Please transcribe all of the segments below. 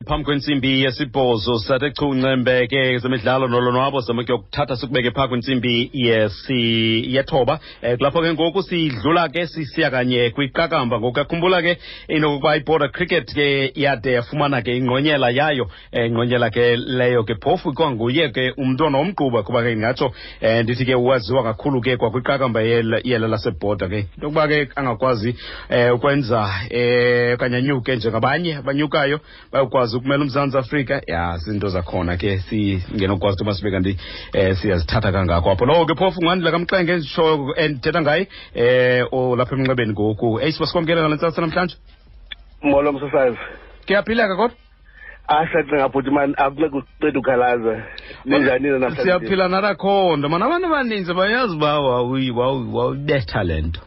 Phambi kwentsimbi yesibhozo sathe chu ncembe ke zemidlalo nolonwabo zama kuyokuthatha sikubeke phaa kwintsimbi yethoba. Kulapho ke ngoku sidlula ke sisiya kanye kwiqakamba. Ngoku yakhumbula ke inokuba iBorder Cricket ke yade yafumana ke ingqonyela yayo, ingqonyela ke leyo ke phofu kwanguye ke umntwana womgquba, kuba ke ndingatsho ndithi ke waziwa kakhulu ke kwakwiqakamba yela laseBorder ke. Into yokuba ke angakwazi ukwenza okanye anyuke njengabanye abanyukayo bayokwazi ukumela uMzantsi Afrika, ya zinto zakhona ke singenokwazi into masibe kanti siyazithatha kangako apho. Lowo ke phofu nguAndile kaMxenge nditsho endithetha ngaye olapha emnxebeni ngoku. Eyi, siba sikwamkele ngale ntsasa namhlanje. Molo msasazi. Kuyaphileka kodwa? Asacinga bhuti mani, akunceda uceda ukhalaza. Ninjani nina namhlanje? Siyaphila narakhonto mani, abantu abaninzi bayazi uba wawuyibetha le nto,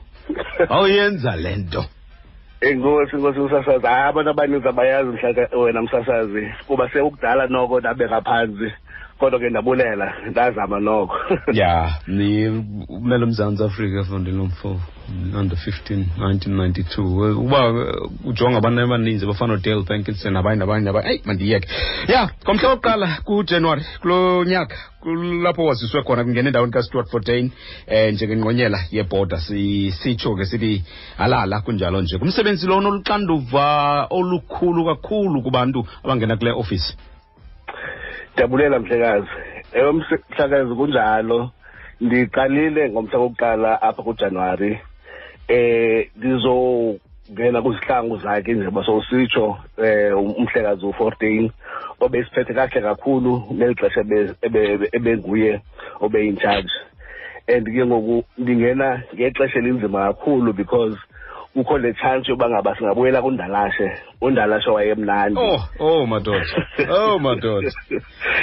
wawuyenza le nto. Enkosi, nkosi msasazi. Hayi, abantu abaninzi abayazi mhla wena msasazi, kuba sekukudala noko ndabeka phantsi, kodwa ke ndabulela, ndazama noko. Ya, ni umele uMzantsi Afrika mfondini lomfo under 15 1992. Uba ujonga abantu abaninzi abafana noDale Parkinson nabanye nabanye nabanye, eyi mandiyeke. Ya, ngomhla wokuqala kuJanuwari kulo nyaka kulapho waziswe khona kungena endaweni kaStuart Fortuin njengengqonyela yeBorder. Sitsho ke sithi halala kunjalo nje kumsebenzi lona oluxanduva olukhulu kakhulu kubantu abangena kule ofisi. Ndiyabulela mhlekazi. Ewe mhlekazi, kunjalo. Ndiqalile ngomhla wokuqala apha kuJanuwari. Ndizongena kwizihlangu zakhe njengoba sowusitsho, umhlekazi u-14 obesiphethe kakuhle kakhulu ngeli xesha ebenguye obe-in charge. And ke ngoku ndingena ngexesha elinzima kakhulu because kukho le chance yoba ngaba singabuyela kundalashe, undalashe wayemnandi. Oh, oh madoda, oh madoda,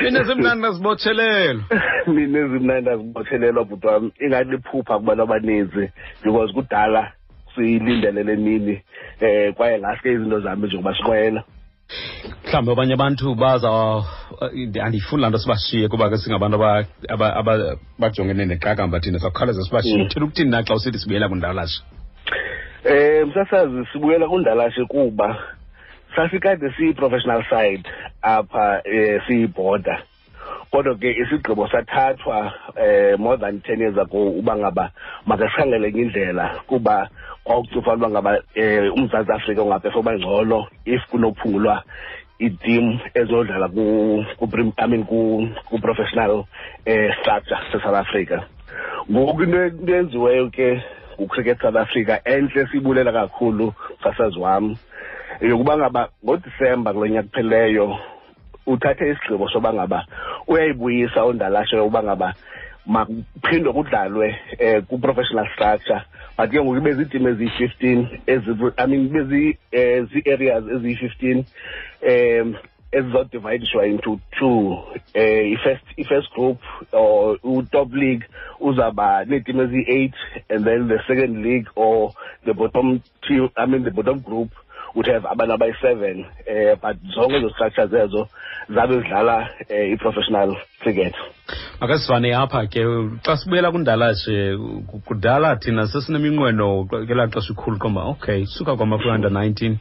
mina zimnandi azibotshelelwa. Mina ezimnandi azibotshelelwa bhuti wam, ingathi liphupha kubantu abaninzi because kudala siyilindele le mini, kwaye ngaske izinto zami njengoba siqwela. Mhlawumbi abanye abantu baza, andiyifuni laa nto sibashiye kuba ke singabantu abajongene neqakamba thina, sawukhawuleza sibashiye. Uthela ukuthini na xa usithi sibuyela kundalashe? Msasazi, sibuyela kundalashe kuba sasikade siyi-professional side apha, siyi-Border, kodwa ke isigqibo sathathwa more than 10 years ago uba ngaba makasikhangele enye indlela, kuba kwakucufa uba ngaba uMzantsi Afrika ungaphefoma ngcono if kunophungulwa iiteam ezodlala ku, I mean, ku-professional structure se-South Africa. Ngoku into eyenziweyo ke nguCricket South Africa entle, siyibulela kakhulu msasazi wam, yokuba ngaba ngoDisemba kulo nyaka kuphelileyo uthathe isigqibo soba ngaba uyayibuyisa undalashe yokuba ngaba makuphindwe kudlalwe ku-professional structure, but ke ngoku ibe ziitim eziyi-15 ezi, I mean, ibe zii-areas eziyi-15 ezizawudivayidishwa into two. I-first group or u-top league uzawuba neetim eziyi-8, and then the second league or the bottom team, I mean the bottom group, would have abantu abayi-7, but zonke ezo structures ezo zabe zidlala i-professional cricket. Makasivane apha ke xa sibuyela kundalashe. Kudala thina sesineminqweno ngelaa xesha ikhulu qomba, okay, suka kwama kwi-under 19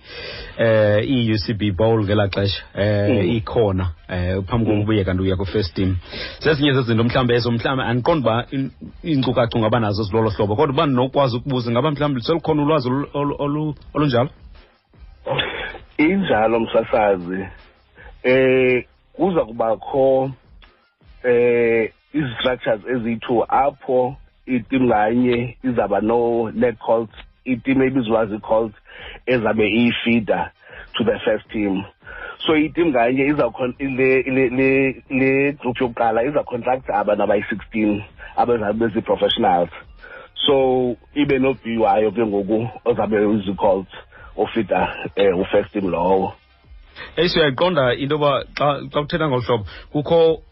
i-UCB Bowl ngelaa xesha ikhona phambi kokubuye kanti uya ku-first team. Zezinye zezinto mhlawumbi ezo, mhlawumbi andiqondi uba iinkcukacha ungaba nazo zilolo hlobo, kodwa uba ndinokwazi ukubuza, ingaba mhlawumbi selukhona ulwazi olunjalo? Injalo msasazi, kuza kubakho izi-structures eziyi-2 apho iteam nganye izaba no-net colts, iteam ebizwa zii-colts ezabe iyifeeder to the first team. So iteam nganye iza le le le group yokuqala iza contract abantu abayi-16 abazabe bezi-professionals, so ibe no-B wayo ke ngoku ozabe uzi-colts ofeeda u-first team lowo. Eyi, siyayiqonda into yoba xa kuthetha ngolu hlobo kukho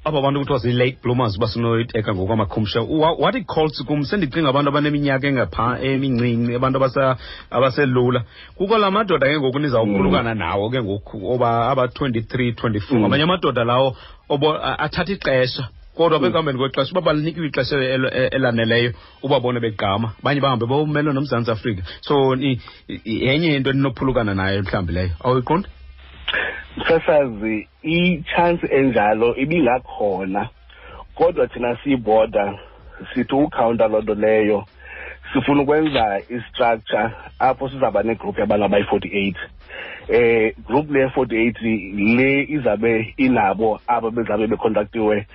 aba bantu kuthiwa zii-late bloomers, uba sinoyiteka ngokwamakhumsha. Wathi colts kum sendicinga abantu abaneminyaka engapha emincinci, abantu abaselula. Kukho la madoda ke ngoku nizawuphulukana nawo ke ngoku, oba aba-23, 24, ngamanye amadoda lawo athatha ixesha, kodwa ekuhambeni kwexesha uba balinikiwe ixesha elaneleyo ubabone begqama, abanye bahambe bawumelwe noMzantsi Afrika. So yenye into eninophulukana nayo mhlawumbi leyo, awuyiqondi? Msasazi, i-chance enjalo ibingakhona, kodwa thina siyiBorder sithi ukhawunta loo nto leyo. Sifuna ukwenza i-structure apho sizawuba negroup yabantu abayi-48. Group le 48 le izabe inabo abo bezabe becontactiwe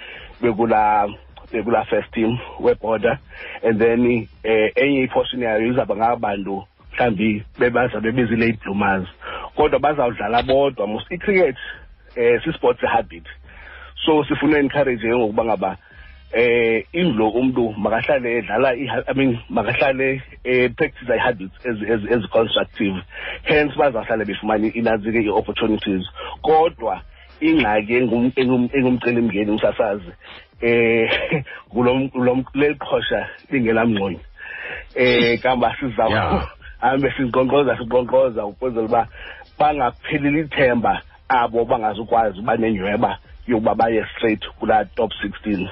bekula first team weBorder, and then enye iportion yayo izawuba ngabantu mhlawumbi bebazabe bezi-late bloomers, kodwa bazawudlala bodwa. Mos i-cricket sisport habit, so sifuna encourage ke ngokuba ngaba indlo umuntu makahlale edlala, I mean, makahlale practice i-habits ezi constructive, hence bazahlale befumana inantsike i-opportunities. Kodwa ingxaki engumcelimngeni, umsasazi, ngulo leli qhosha lingelamngxonyo kamba siza hambe sinkqonkqoza ukwenzela uba bangapheleli ithemba abo bangazukwazi uba nenyweba yokuba baye straight kulaa top 16.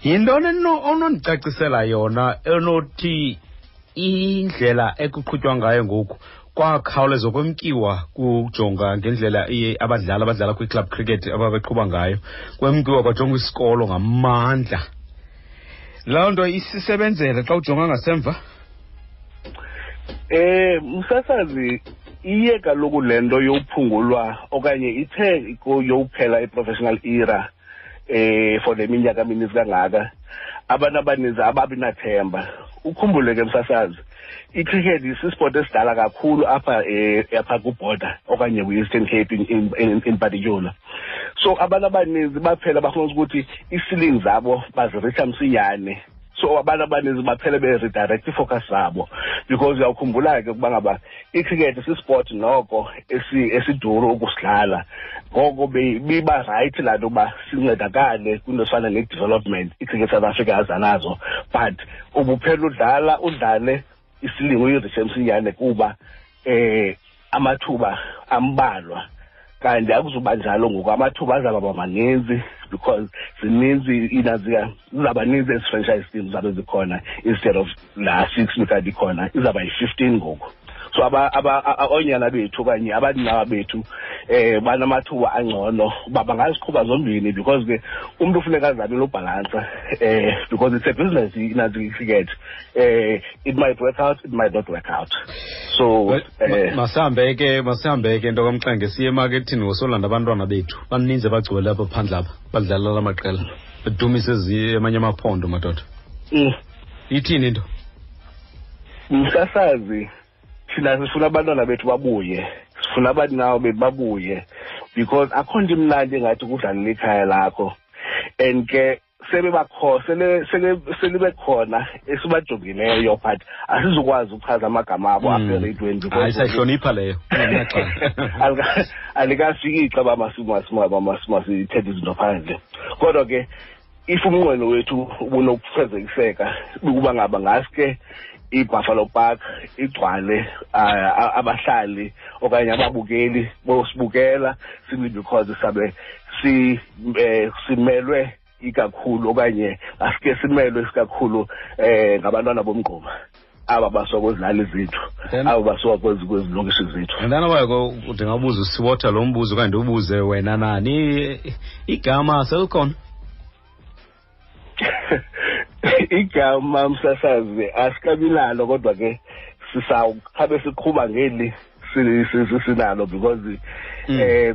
Yintoni onondicacisela yona enothi indlela ekuqhutywa ngayo ngoku kwakhawuleza kwemkiwa kujonga ngendlela abadlali abadlala kwi-club cricket ababeqhuba ngayo, kwemkiwa kwajongwa isikolo ngamandla, loo nto isisebenzele xa ujonga ngasemva? Msasazi, iye kaloku le nto yokuphungulwa okanye ithe yokuphela i-professional era for le minyaka mininzi kangaka, abantu abaninzi ababi nathemba. Ukhumbule ke, msasazi, icricket sisport esidala kakhulu apha apha kuBorder okanye kwi-Eastern Cape in particular, so abantu abaninzi baphela bafuna ukuthi ii-ceiling zabo baziritsha msinyane. So abantu abaninzi baphele be-redirect ifocus zabo, because uyawukhumbula ke ukuba ngaba icricket sisport noko esiduru ukusidlala. Ngoko biba right laa nto uba sincedakale kwinto efana ne-development iCricket South Africa aza nazo, but ubuphela udlala udlale isilingo uyiritshe msinyane kuba amathuba ambalwa. Kanti akuzuba njalo ngoku, amathuba azawuba maninzi because zininzi inazika, zizawuba ninzi ezi franchise teams zabe zikhona. Instead of laa six bikade ikhona, izawuba yi-15 ngoku. So oonyana bethu okanye abaninawa bethu banamathuba angcono uba bangaziqhuba zombini, because ke umntu ufuneka azamile ubhalansa because it's a business inantsika icricket. It might work out, it might not work out, so Masihambe ke, nto kaMxenge, siye emakethini ngosolanda abantwana bethu. Baninzi abagcwele apha phandle apha badlala la maqela bedumise amanye amaphondo, madoda. Ithini into? Msasazi, thina sifuna abantwana bethu babuye, sifuna abaninawo bethu babuye, because akho nto imnandi engathi kudlalela ikhaya lakho. And ke sebebakho sele sele selibekhona esibajongileyo, but asizukwazi ukuchaza amagama abo apha ereyidweni because Hayi, sayihlonipha leyo. Alikafiki ixa uba masithethe izinto phandle. Kodwa ke if umnqweno wethu ubunokufezekiseka, ukuba ngaba ngaske iBuffalo Park igcwale abahlali okanye ababukeli bosibukela, simply because sabe simelwe ikakhulu okanye asike simelwe isikakhulu ngabantwana bomgquba aba basuka kwezilali zethu, aba basuka kwezilokishi zethu. And then wayeko ndingabuza uSiwotha lo mbuzo okanye ndiwubuze wena nani, igama selikhona? Igama, msasazi, asikabi nalo, kodwa ke sisawukhabe siqhuba ngeli sinalo because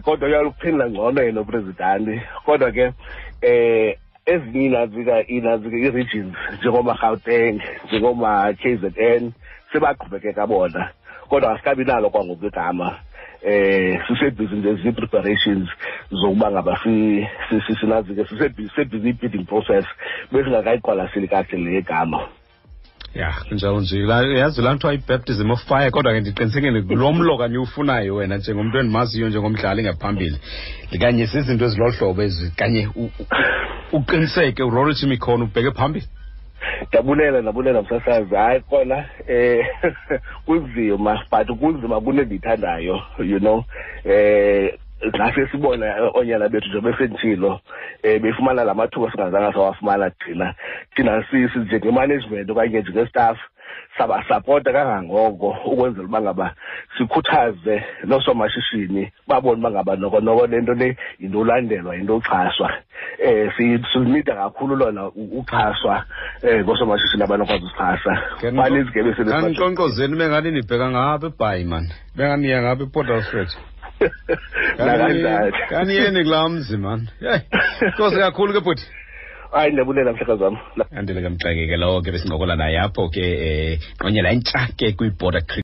kodwa uyaluphendula ngcono yena upresident. Kodwa ke ezinye inazika i-regions njengoma-Gauteng, njengoma-KZN, sebaqhubekeka bona, kodwa asikabi nalo kwangoku igama. Sisebhizi nje zii-preparations zokuba ngaba sinazike, sisebhizi i-bidding process, besingakayiqwalaseli kakuhle le gama. Ya, kunjalo nje. Yazi laa nto i-baptism of fire, kodwa ke ndiqinisekile lo mlo kanye ufunayo wena njengomntu endimaziyo njengomdlali ngaphambili, kanye zizinto ezilolu hlobo ezi kanye uqiniseke urolishe imikhono ubheke phambili. Ndabulela, ndabulela, msasazi. Hayi kona, kunzima, but kunzima kunendiyithandayo. Ngase sibona oonyana bethu njengoba besenditshilo befumana la mathuba singazange sawafumana thina. Thina njenge-management okanye njenge-staff. Sabasapota kangangoko ukwenzela uba ngaba sikhuthaze noosomashishini babone uba ngaba noko noko le nto le yinto ulandelwa, yinto uxhaswa. Silunida kakhulu lona uxhaswa ngoosomashishini abanokwazi usixhasa. Baninzi ke besele. Kandinkqonkqozeni bengani nibheka ngapha eBhayi mani, bengani niya ngapha ePort Alfred. Nakanjani. Kaniyeni kulaa mzi mani. Yeyi, nkosi kakhulu ke bhuti. Hayi, ndiyabulela mhlekazi wam. Andile ke Mxeke ke lowo ke besincokola naye apho ke, ngqonyela entsha ke kwiBorder Cricket.